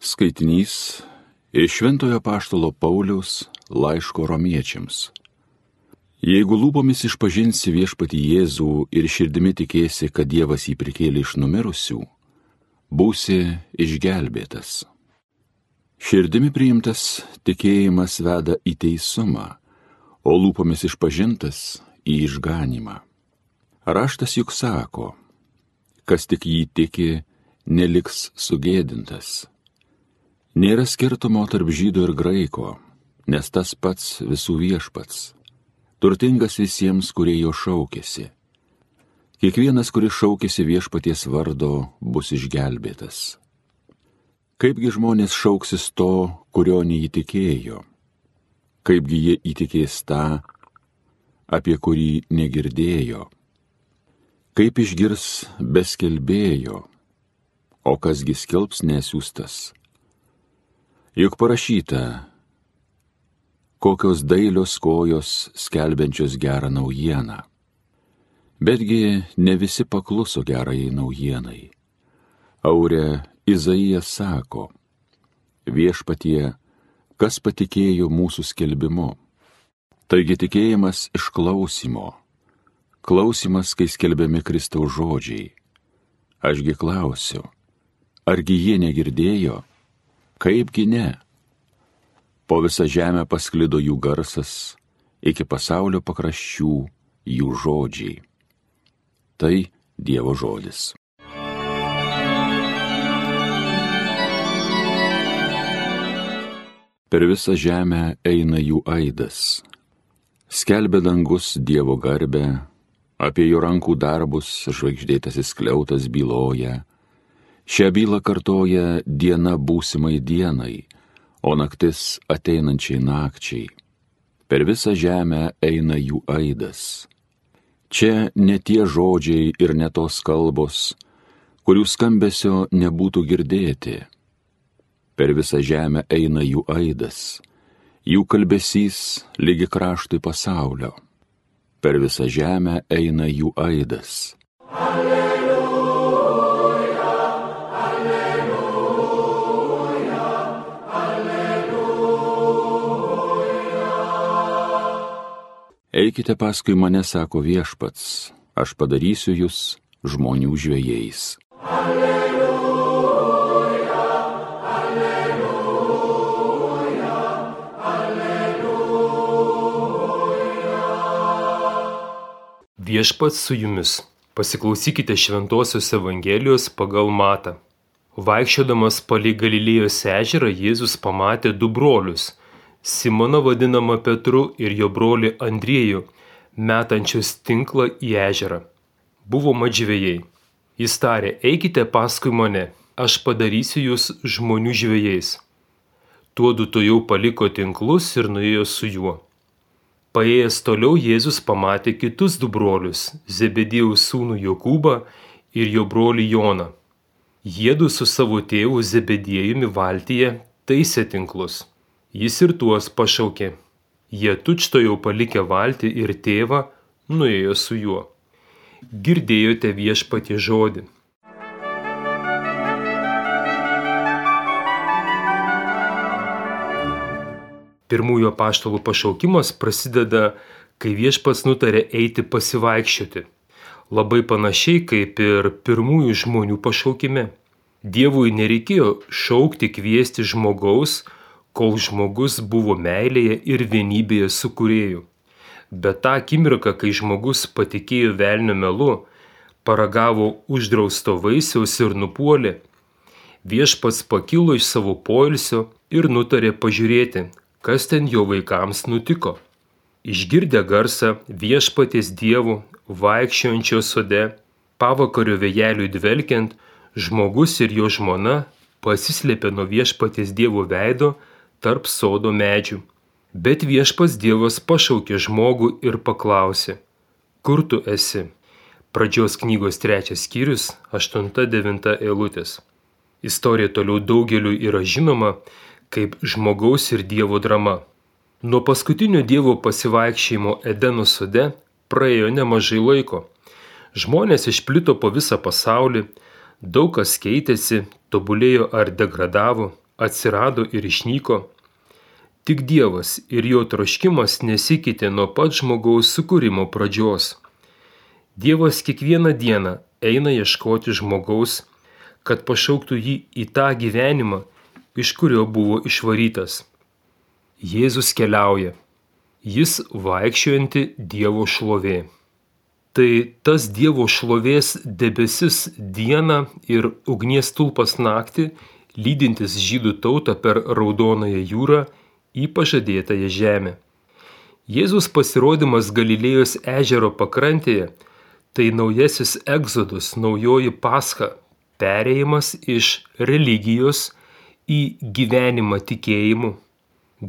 Skaitinys iš Šventojo Apaštalo Pauliaus laiško Romiečiams. Jeigu lūpomis išpažinsi viešpatį Jėzų ir širdimi tikėsi, kad Dievas jį prikėlė iš numirusių, būsi išgelbėtas. Širdimi priimtas tikėjimas veda į teisumą, o lūpomis išpažintas į išganymą. Raštas juk sako, kas tik jį tiki, neliks sugėdintas. Nėra skirtumo tarp žydo ir graiko, nes tas pats visų viešpats, turtingas visiems, kurie jo šaukėsi. Kiekvienas, kuris šaukėsi viešpaties vardo, bus išgelbėtas. Kaipgi žmonės šauksis to, kurio neįtikėjo? Kaipgi jie įtikės tą, apie kurį negirdėjo? Kaip išgirs be skelbėjo, o kasgi skelbs nesiųstas? Juk parašyta, kokios dailios kojos skelbiančios gerą naujieną. Betgi ne visi pakluso gerajai naujienai. Aure Izaijas sako, viešpatie, kas patikėjo mūsų skelbimu? Taigi tikėjimas iš klausymo, klausymas, kai skelbiami Kristaus žodžiai. Ašgi klausiu, argi jie negirdėjo? Kaipgi ne? Po visą žemę pasklido jų garsas, iki pasaulio pakraščių jų žodžiai. Tai Dievo žodis. Per visą žemę eina jų aidas. Skelbia dangus Dievo garbę, apie jo rankų darbus žvaigždėtasis skliautas byloja. Šią bylą kartoja diena būsimai dienai, o naktis ateinančiai nakčiai. Per visą žemę eina jų aidas. Čia ne tie žodžiai ir ne tos kalbos, kurių skambesio nebūtų girdėti. Per visą žemę eina jų aidas, jų kalbesys lygi kraštui pasaulio. Per visą žemę eina jų aidas. Eikite paskui mane, sako viešpats, aš padarysiu jūs žmonių žvejais. Alleluja, alleluja, alleluja. Viešpats su jumis. Pasiklausykite Šventosios Evangelijos pagal Matą. Vaikščiodamas palei Galilėjos ežerą, Jėzus pamatė du brolius, Simoną vadinamą Petru ir jo brolį Andriejų, metančius tinklą į ežerą. Buvo mat žvejai. Jis tarė, eikite paskui mane, aš padarysiu jūs žmonių žvejais. Tuodu tuojau paliko tinklus ir nuėjo su juo. Paėjęs toliau Jėzus pamatė kitus du brolius, Zebediejaus sūnų Jokūbą ir jo brolį Joną. Jiedu su savo tėvu Zebediejumi valtyje taisė tinklus. Jis ir tuos pašaukė. Jie tučtuojau palikę valtį ir tėvą, nuėjo su juo. Girdėjote viešpatie žodį. Pirmųjų apaštalų pašaukimas prasideda, kai viešpats nutarė eiti pasivaikščioti. Labai panašiai kaip ir pirmųjų žmonių pašaukime. Dievui nereikėjo šaukti, kviesti žmogaus, kol žmogus buvo meilėje ir vienybėje su Kūrėju. Bet tą akimirką, kai žmogus patikėjo velnio melu, paragavo uždrausto vaisiaus ir nupuolė, viešpats pakilo iš savo poilsio ir nutarė pažiūrėti, kas ten jo vaikams nutiko. Išgirdę garsą viešpaties Dievo vaikščiojančio sode, pavakario vėjeliui dvelkiant, žmogus ir jo žmona pasislėpė nuo viešpaties Dievo veido tarp sodo medžių. Bet viešpats Dievas pašaukė žmogų ir paklausė, kur tu esi? Pradžios knygos 3 skyrius, 8-9 eilutės. Istorija toliau daugeliu yra žinoma kaip žmogaus ir Dievo drama. Nuo paskutinio Dievo pasivaikščiojimo Edeno sode praėjo nemažai laiko. Žmonės išplito po visą pasaulį, daug kas keitėsi, tobulėjo ar degradavo. atsirado ir išnyko. Tik Dievas ir jo troškimas nesikeitė nuo pat žmogaus sukūrimo pradžios. Dievas kiekvieną dieną eina ieškoti žmogaus, kad pašauktų jį į tą gyvenimą, iš kurio buvo išvarytas. Jėzus keliauja. Jis vaikščiojanti Dievo šlovė. Tai tas Dievo šlovės debesis dieną ir ugnies stulpas naktį, lydintis žydų tautą per Raudonąją jūrą į pažadėtąją žemę. Jėzus pasirodymas Galilėjos ežero pakrantėje – tai naujasis egzodus, naujoji Pascha, perėjimas iš religijos į gyvenimą tikėjimu.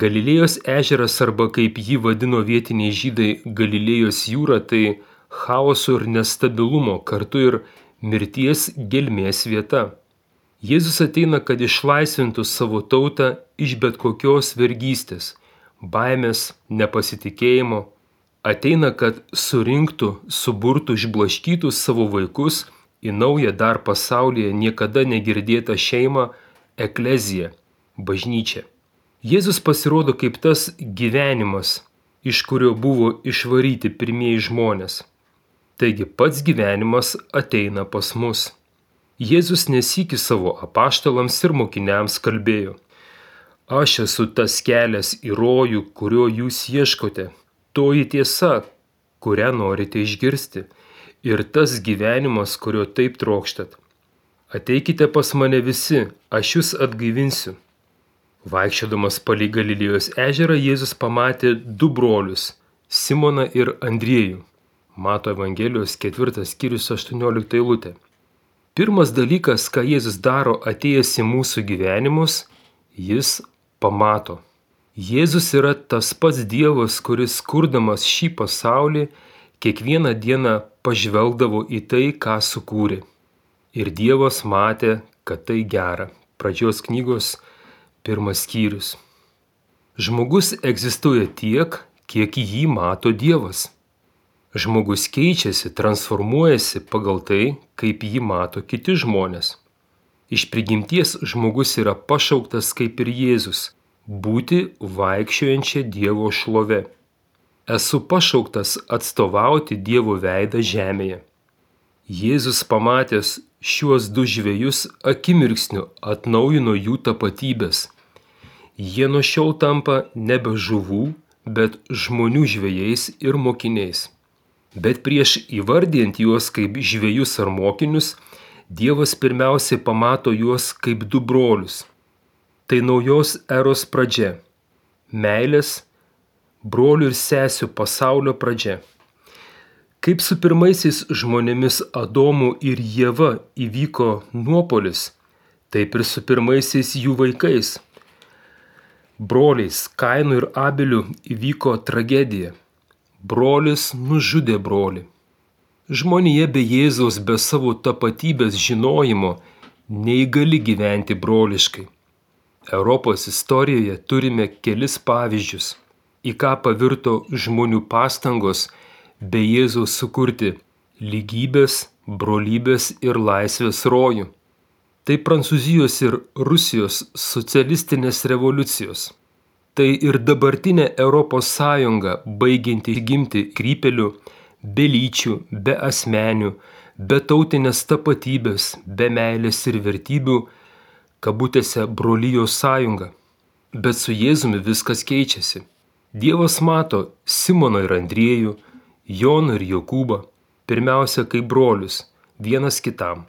Galilėjos ežeras arba kaip jį vadino vietiniai žydai Galilėjos jūra, tai chaoso ir nestabilumo, kartu ir mirties gelmės vieta. Jėzus ateina, kad išlaisvintų savo tautą iš bet kokios vergystės, baimės, nepasitikėjimo. Ateina, kad surinktų, suburtų, išblaškytų savo vaikus į naują dar pasaulyje niekada negirdėtą šeimą, ekleziją, bažnyčią. Jėzus pasirodo kaip tas gyvenimas, iš kurio buvo išvaryti pirmieji žmonės. Taigi pats gyvenimas ateina pas mus. Jėzus nesykį savo apaštalams ir mokiniams kalbėjo: Aš esu tas kelias į rojų, kurio jūs ieškote, toji tiesa, kurią norite išgirsti, ir tas gyvenimas, kurio taip trokštat. Ateikite pas mane visi, aš jūs atgaivinsiu. Vaikščiodamas palei Galilėjos ežerą, Jėzus pamatė du brolius – Simoną ir Andriejų. Mato Evangelijos 4 skyrius 18 eilutė. Pirmas dalykas, ką Jėzus daro atėjęs į mūsų gyvenimus, jis pamato. Jėzus yra tas pats Dievas, kuris kurdamas šį pasaulį kiekvieną dieną pažvelgdavo į tai, ką sukūrė. Ir Dievas matė, kad tai gera. Pradžios knygos 1 skyrius. Žmogus egzistuoja tiek, kiek jį mato Dievas. Žmogus keičiasi, transformuojasi pagal tai, kaip jį mato kiti žmonės. Iš prigimties žmogus yra pašauktas kaip ir Jėzus – būti vaikščiojančia Dievo šlove. Esu pašauktas atstovauti Dievo veidą žemėje. Jėzus pamatęs šiuos du žvejus akimirksniu atnaujino jų tapatybės. Jie nuo šiol tampa nebe žuvų, bet žmonių žvejais ir mokiniais. Bet prieš įvardijant juos kaip žvejus ar mokinius, Dievas pirmiausiai pamato juos kaip du brolius. Tai naujos eros pradžia. Meilės, brolių ir sesių pasaulio pradžia. Kaip su pirmaisiais žmonėmis Adomu ir Ieva įvyko nuopuolis, taip ir su pirmaisiais jų vaikais. Broliais Kainu ir Abeliu įvyko tragedija. Brolis nužudė brolį. Žmonija be Jėzaus, be savo tapatybės žinojimo, neįgali gyventi broliškai. Europos istorijoje turime kelis pavyzdžius, į ką pavirto žmonių pastangos be Jėzaus sukurti lygybės, brolybės ir laisvės rojų. Tai Prancūzijos ir Rusijos socialistinės revoliucijos. Tai ir dabartinė Europos Sąjunga, baigianti gimti krypelių, be lyčių, be asmenių, be tautinės tapatybės, be meilės ir vertybių, kabutėse brolijos sąjunga. Bet su Jėzumi viskas keičiasi. Dievas mato Simoną ir Andriejų, Joną ir Jokūbą, pirmiausia kaip brolius, vienas kitam.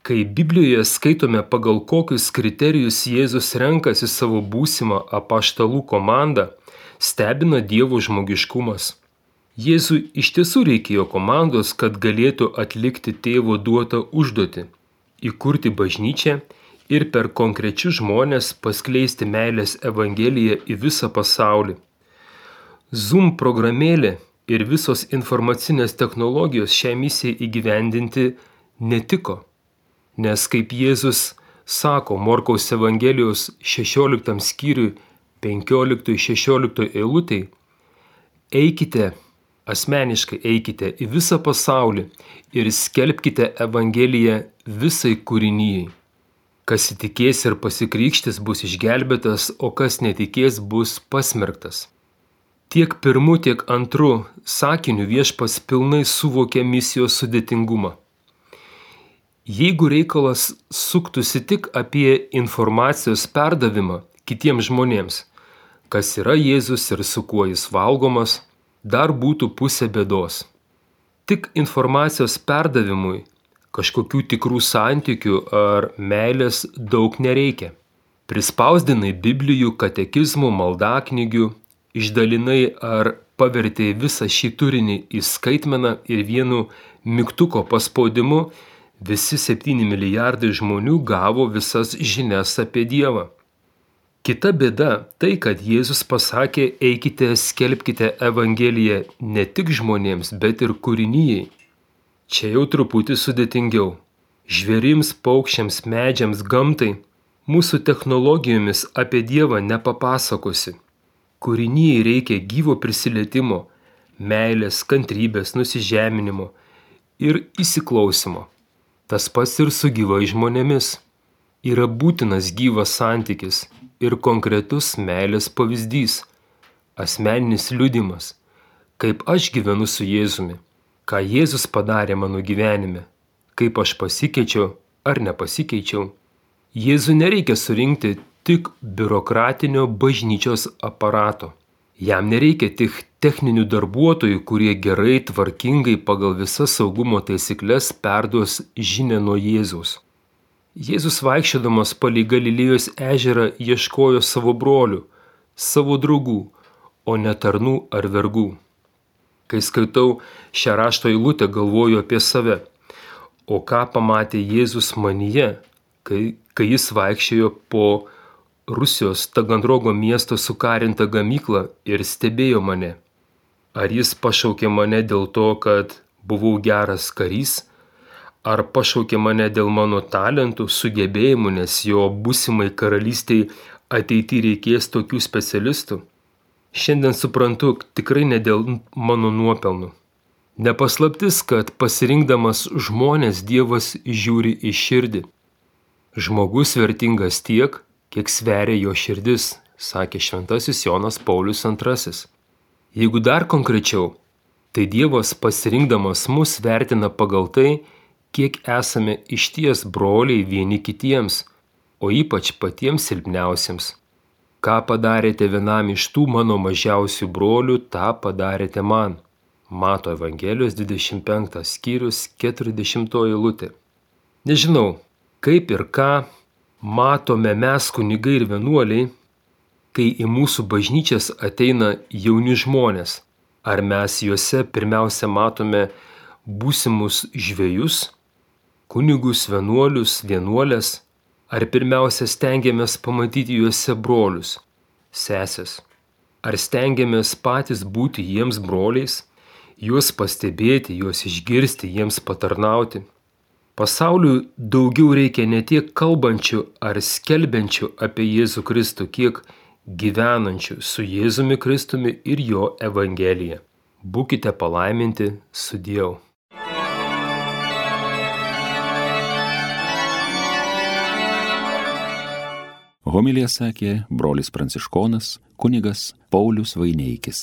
Kai Biblijoje skaitome, pagal kokius kriterijus Jėzus renkasi savo būsimą apaštalų komandą, stebina Dievo žmogiškumas. Jėzui iš tiesų reikėjo komandos, kad galėtų atlikti tėvo duotą užduotį – įkurti bažnyčią ir per konkrečius žmonės paskleisti meilės evangeliją į visą pasaulį. Zoom programėlė ir visos informacinės technologijos šią misiją įgyvendinti netiko. Nes kaip Jėzus sako Morkaus Evangelijos 16 skyriui 15-16 eilutei, eikite, asmeniškai eikite į visą pasaulį ir skelbkite Evangeliją visai kūrinijai. Kas įtikės ir pasikrikštys bus išgelbėtas, o kas netikės bus pasmerktas. Tiek pirmu, tiek antru sakiniu Viešpats pilnai suvokė misijos sudėtingumą. Jeigu reikalas suktųsi tik apie informacijos perdavimą kitiems žmonėms, kas yra Jėzus ir su kuo jis valgomas, dar būtų pusė bėdos. Tik informacijos perdavimui kažkokių tikrų santykių ar meilės daug nereikia. Prispausdinai Biblijų, katekizmų, maldaknygių, išdalinai ar pavertei visą šį turinį į skaitmeną ir vienu mygtuko paspaudimu visi 7 milijardai žmonių gavo visas žinias apie Dievą. Kita bėda tai, kad Jėzus pasakė, eikite, skelbkite Evangeliją ne tik žmonėms, bet ir kūrinijai. Čia jau truputį sudėtingiau. Žvėrims, paukščiams, medžiams, gamtai mūsų technologijomis apie Dievą nepapasakosi. Kūrinijai reikia gyvo prisilietimo, meilės, kantrybės, nusižeminimo ir įsiklausimo. Tas pats ir su gyvais žmonėmis. Yra būtinas gyvas santykis ir konkretus meilės pavyzdys, asmeninis liudimas, kaip aš gyvenu su Jėzumi, ką Jėzus padarė mano gyvenime, kaip aš pasikeičiau ar nepasikeičiau. Jėzui nereikia surinkti tik biurokratinio bažnyčios aparato. Jam nereikia tik techninių darbuotojų, kurie gerai, tvarkingai pagal visas saugumo taisyklės perduos žinią nuo Jėzaus. Jėzus vaikščiodamas palei Galilėjos ežerą ieškojo savo brolių, savo draugų, o ne tarnų ar vergų. Kai skaitau šią rašto eilutę, galvoju apie save. O ką pamatė Jėzus manyje, kai jis vaikščiojo po Rusijos Taganrogo miesto sukarintą gamyklą ir stebėjo mane? Ar jis pašaukė mane dėl to, kad buvau geras karys? Ar pašaukė mane dėl mano talentų, sugebėjimų, nes jo būsimai karalystiai ateityje reikės tokių specialistų? Šiandien suprantu, tikrai ne dėl mano nuopelnų. Nepaslaptis, kad pasirinkdamas žmonės Dievas žiūri į širdį. Žmogus vertingas tiek, kiek sveria jo širdis, sakė šventasis Jonas Paulius II. Jeigu dar konkrečiau, tai Dievas pasirinkdamas mus vertina pagal tai, kiek esame išties broliai vieni kitiems, o ypač patiems silpniausiems. Ką padarėte vienam iš tų mano mažiausių brolių, tą padarėte man. Mato Evangelijos 25 skyrius 40 eilutė. Nežinau, kaip ir ką matome mes kunigai ir vienuoliai, kai į mūsų bažnyčias ateina jauni žmonės. Ar mes juose pirmiausia matome būsimus žvejus, kunigus, vienuolius, vienuolės, ar pirmiausia stengiamės pamatyti juose brolius, sesės? Ar stengiamės patys būti jiems broliais, juos pastebėti, juos išgirsti, jiems patarnauti? Pasauliui daugiau reikia ne tiek kalbančių ar skelbiančių apie Jėzų Kristų, kiek gyvenančių su Jėzumi Kristumi ir jo Evangelija. Būkite palaiminti, sudieu. Homiliją sakė brolis pranciškonas kunigas Paulius Vaineikis.